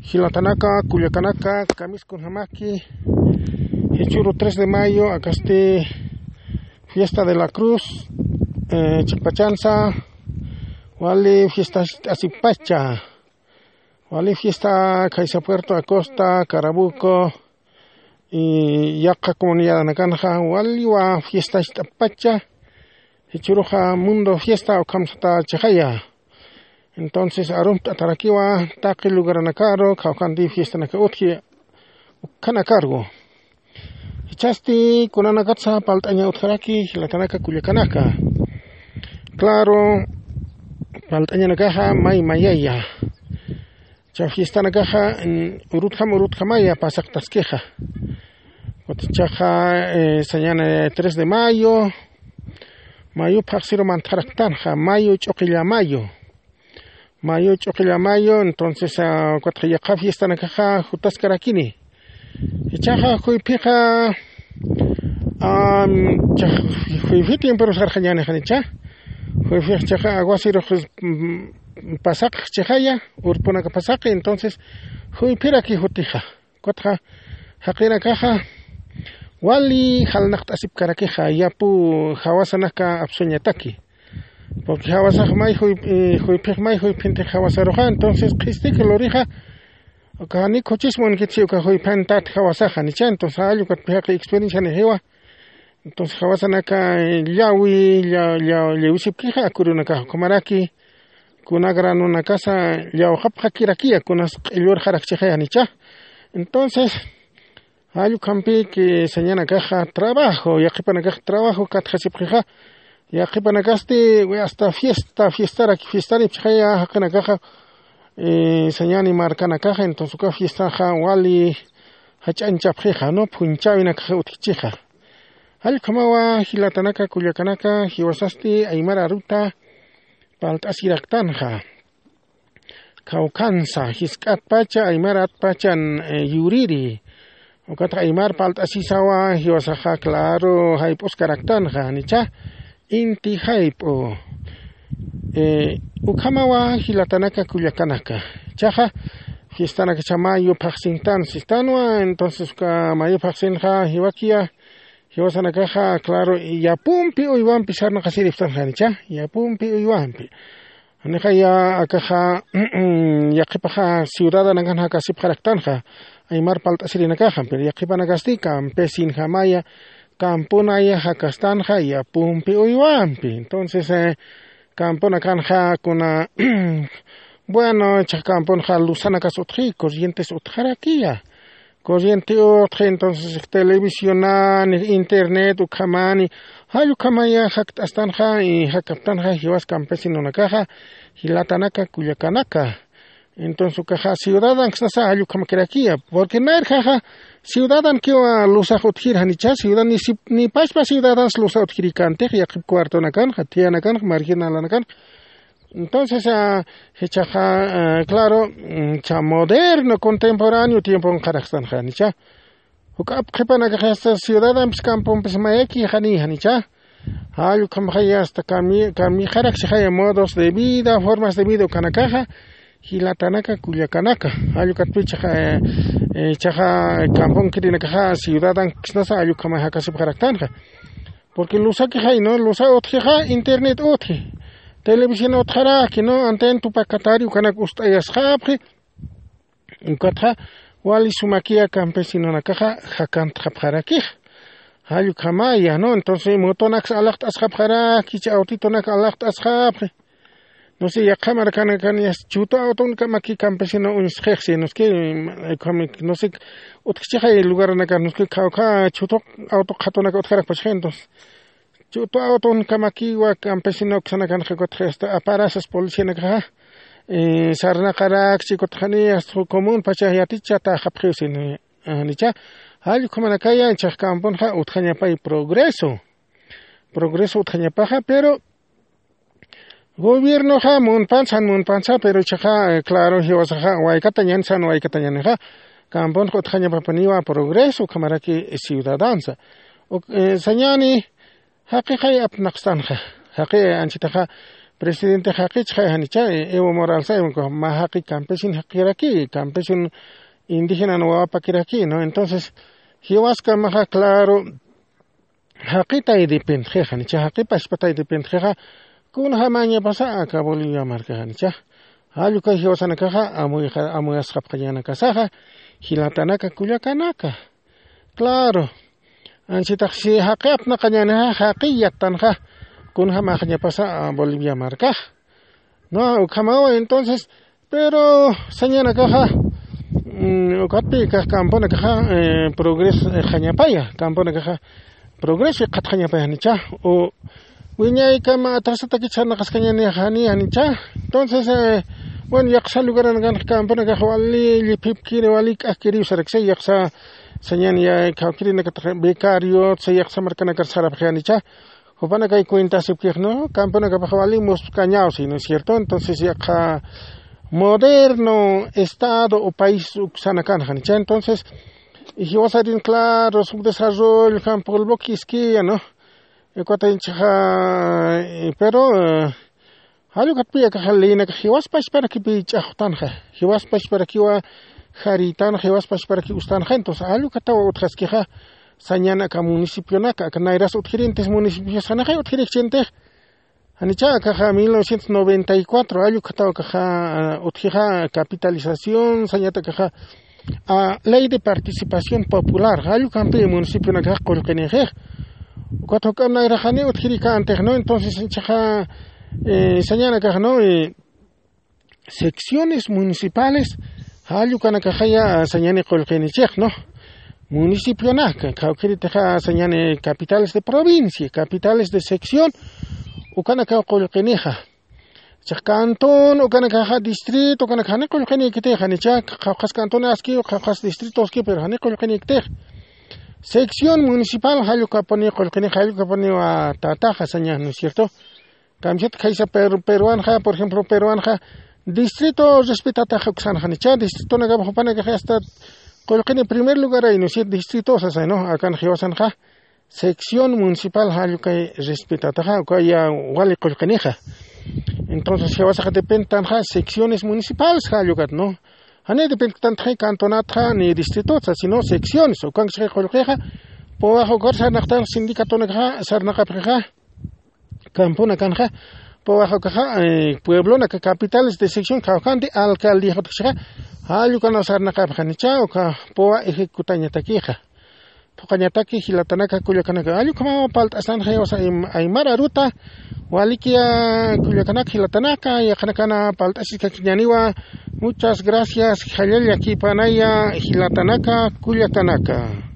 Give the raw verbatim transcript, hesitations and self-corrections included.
Jilatanaka, kullakanaka, kamisku namaki, jichuru tres de mayo, akasti fiesta de la cruz, eh, chiqpachansa, wali fiesta asipacha, wali fiesta Caiza Puerto Acosta, Carabuco, y yaqa comunidad nakanxa, waliwa fiesta pacha, jichuruxa mundo fiesta ukhamsata chixaya. Entonces, arumt'atarakiwa taqi lugaranakaru, kawkandi fiestanaka utji, ukanakaru. Jichhasti kunanakatsa palt'aña utjaraki, jilatanaka kullakanaka. Claro, palt'añanakaxa may mayaya. Cha fiestanakaxa, mm, urutjam urutjamaya pasaqtaskixa. Kutichaxa, eh, sañana tres de mayo, mayo phaxsiru mantxaraktanxa, mayo ch'uqilla mayo. Mayo ch'uqilla mayo, entonces, ah, kutixa yaqa fiestanakaxa jutaskarakini. Ichaxa juyphixa, am, cha, juyphi tiempo sarxañani janicha. Juyphix chaxa aguasiru, mm, pasaq chixaya, urpunaka pasaqi, entonces, juyphiraki jutixa. Kutixa, jaqinakaxa, wali jalnaqt'asipkarakixa, yapu jawasanaka apsuñataki. Porque jawasax may juy-, eh, juyphix may juyphintix jawasaruxa, entonces, qhistik lurixa, uka jani khuchismunkitsi uka juyphantat jawasaxa, nicha, entonces, jall ukat pixaqi experiencia nixiwa. Entonces, jawasanaka, eh, llawi, lla-, lla-, llawisipkixa, akurunakaxa, ukhamaraki, kuna granonakasa llawxapxakirakiya, kunas q'illurxarakchixaya, nicha. Entonces, jall ukhampi que sañanakaxa trabajo, yaqhipanakaxa trabajo katjasipxixa, yaqhipanakasti, hasta fiesta, fiestaraki, fiestaripxaya, jaqinakaxa, eh, sañani markanakaxa, entonces uka fiestaxa wali jach'añchapxixa, ¿no? Phunchawinakaxa utjchixa. Jall ukhamawa jilatanaka, kullakanaka, jiwasasti aymar aruta palt'asiraktanxa. Kawkhansa, jisk'atpacha, aymaratpachan, eh, yuriri. Ukatax aymar palt'asisawa, jiwasaxa, claro, jayp'uskaraktanxa, nicha, inti jayp'u. Eh, ukhamawa jilatanaka, kullakanaka. Chaxa, fiestanakacha mayo phaxsintan sistanwa, entonces uka mayo phaxsinxa jiwakiya, jiwasanakaxa, claro, yapumpi uywampi sarnaqasiripxtanxa, nicha, yapumpi uywampi. Janixaya akaxa, yaqhipaxa ciudadanakan jakasipxaraktanxa, aymar palt'asirinakaxa, pero yaqhipanakasti campesinjamaya, campunaya jakastanxa, yapumpi uywampi. Entonces, eh, campunakanxa kuna, bueno, chax campunxa luzanakas utji, corrientes utjarakiya. Corriente utji, entonces, televisionan, internet, ukhamani, jall ukhamaya jakt'astanxa, y jakaptanxa, jiwas campesinonakaxa, jilatanaka, kullakanaka. Entonces, ukaxa, ciudadanksnasa, jall ukhamakirakiya, porque nayrjaxa, ciudadankiwa lusax utjir janicha, ciudadan, ni si-, ni pachpa ciudadans lusa utjirikantix, yaqhip cuartonakanxa, thiyanakanxa, marginalanakanxa. Entonces, ah, jichhaxa, ah, claro, mm, cha moderno, contemporáneo tiemponxarakstanxa, nicha. Juk'ap qhipanakaxa hasta ciudadampis campompis mayaki jani, janicha. Jall ukhamaxaya hasta cami-, camijarakchixaya modos de vida, formas de vida ukanakaxa, jilatanaka, kullakanaka. Jall ukatpichaxa, eh, eh, chaxa camponkirinakaxa ciudadankisnasa jall ukhamay jakasipxaraktanxa. Porque lusakixay, ¿no? Lusa utjixa, internet utji. Televisión utjaraki, ¿no? Anten tupakatari ukanak ust'ayasxapxi. Ukatxa, wali sumakiya campesinonakaxa, jakantxapxarakix. Jall ukhamaya, ¿no? Entonces, motonaks alaqt'asxapxaraki, cha autitonak alaqt'asxapxi. No sé, yaqha markanakan yas chuto autonkamaki campesino uñsxixsi, no sé, no sé, utjchixay lugaranakan, no sé, kawkha chuto auto qhatunaka utjarakpachxi, entonces. Chuto autonkamaki wa campesino ksanakan qhikutxi hasta aparasas policianakaxa, eh, sarnaqarakchi kutxani hasta común pacha yaticha taxapxiwsin, eh, nicha. Jall ukhamanakaya, chax camponxa utjañapay progreso. Progreso utjañapaxa, pero gobiernoxa munpansa, munpansa, pero chaxa, eh, claro, jiwasaxa, waykatañan, san waykatañanixa, camponxa utjañapapaniwa progreso, ukhamaraki ciudadansa. Uk-, eh, sañani, jaqixay apnaqstanxa, jaqi anchitaxa, presidente jaqichxa janicha, Evo Moralsa, mä jaqi campesin jaqiraki, campesin indígenan wawapakiraki, ¿no? Entonces, jiwaskamaxa, claro, jaqitay dependxi janicha, jaqipachpatay dependxixa, kunjamañapasa aka Bolivia marka janicha. Jallukay jiwasanakaxa amuyasxapxañanakasaxa, jilatanaka kullakanaka. Claro. Ansitax si jaqi apnaqañänixa, jaqi yattanxa, kunjamaxañapasa Bolivia markax. No, ukhamawa entonces, pero sañanakaxa, ukatpï kax camponakaxa progresxañapaya, camponakaxa progreso iqhatxañapaya janicha. U wiñaykama atrasatakich sarnaqaskañäni janicha. Entonces, bueno, yaqsa lugaranakanxa camponakax wali lliphipkiri, wali k'ajkiriw saraksay, yaqsa sañan ya kawkirinakatax becario sa yaqsa markanakar sarapxi janicha. Jupanakay cuentasipkix, ¿no? Camponakapax wali muspkañaw, ¿sí, no es cierto? Entonces yaqha moderno estado o país uksanakan janicha. Entonces, jiwasarin, claro, subdesarrollo jan polvo kiskiya, ¿no? Ukatay inchaxa, pero jallukatpï akaxa leynakax jiwaspachparakipi ch'axtanxa, jiwaspachparakiwa jarïtanxa, jiwaspachparaki ustanxa. Entonces jallukatawa utjaskixa, sañan aka municipionaka, aka nayras utjirintis municipiosanaxay utjirikchintix. Janicha akaxa mil novecientos noventa y cuatro jallukatawa akaxa utjixa capitalización, sañata akaxa ley de participación popular, jallukampi municipionakax qullqinixix. Ukat juk'amp nayraxani utjirikantix, ¿no? Entonces inchaxa sañanakax, ¿no? Secciones municipales jallukanakaxaya sañani qullqinichix, ¿no? Municipionaka, kawkiritixa sañani capitales de provincia, capitales de sección, ukanakaw qullqinixa. Chax cantón ukanakaxa, distrito ukanakax jani qullqinïkitix, janicha, qhawqhas cantón aski, qhawqhas distrito aski, pero jani qullqinïkitix. Sección municipal jallukapuni qullqinix, jallukapuniwa tataxa saña, ¿no es cierto? Kamsat khaysa peruanxa, por ejemplo, peruanxa distrito respetataxa uksan, janicha, distritonakapax jupanakax hasta qullqini primer lugaray, ¿no es cierto? Distrito sasay, ¿no? Akan jiwasanxa sección municipal jallukay respetataxa, ukaya wali qullqinixa. Entonces jiwasaxa depentanxa secciones municipales jallukat, ¿no? Jani dependtantaxi cantonatxa ni distritot, sino secciones, ukanksa qullqixa. Puwax ukar sarnaqtan sindicatonakaxa sarnaqapxixa, camponakanxa, puwax ukaxa pueblonaka, capitales de sección, kawkanti alcaldía jutxixa, jallukanaw sarnaqapxanicha uka puwa ejecutañatakixa. Phuqañataki jilatanaka kullakanaka, jallukamaw palt'asanxa jiwasa aymar aruta. Walikiya kullakanaka jilatanaka, yaqhanakana palt'asiskakiñaniwa. Muchas gracias, jallalla kipanaya jilatanaka kullakanaka.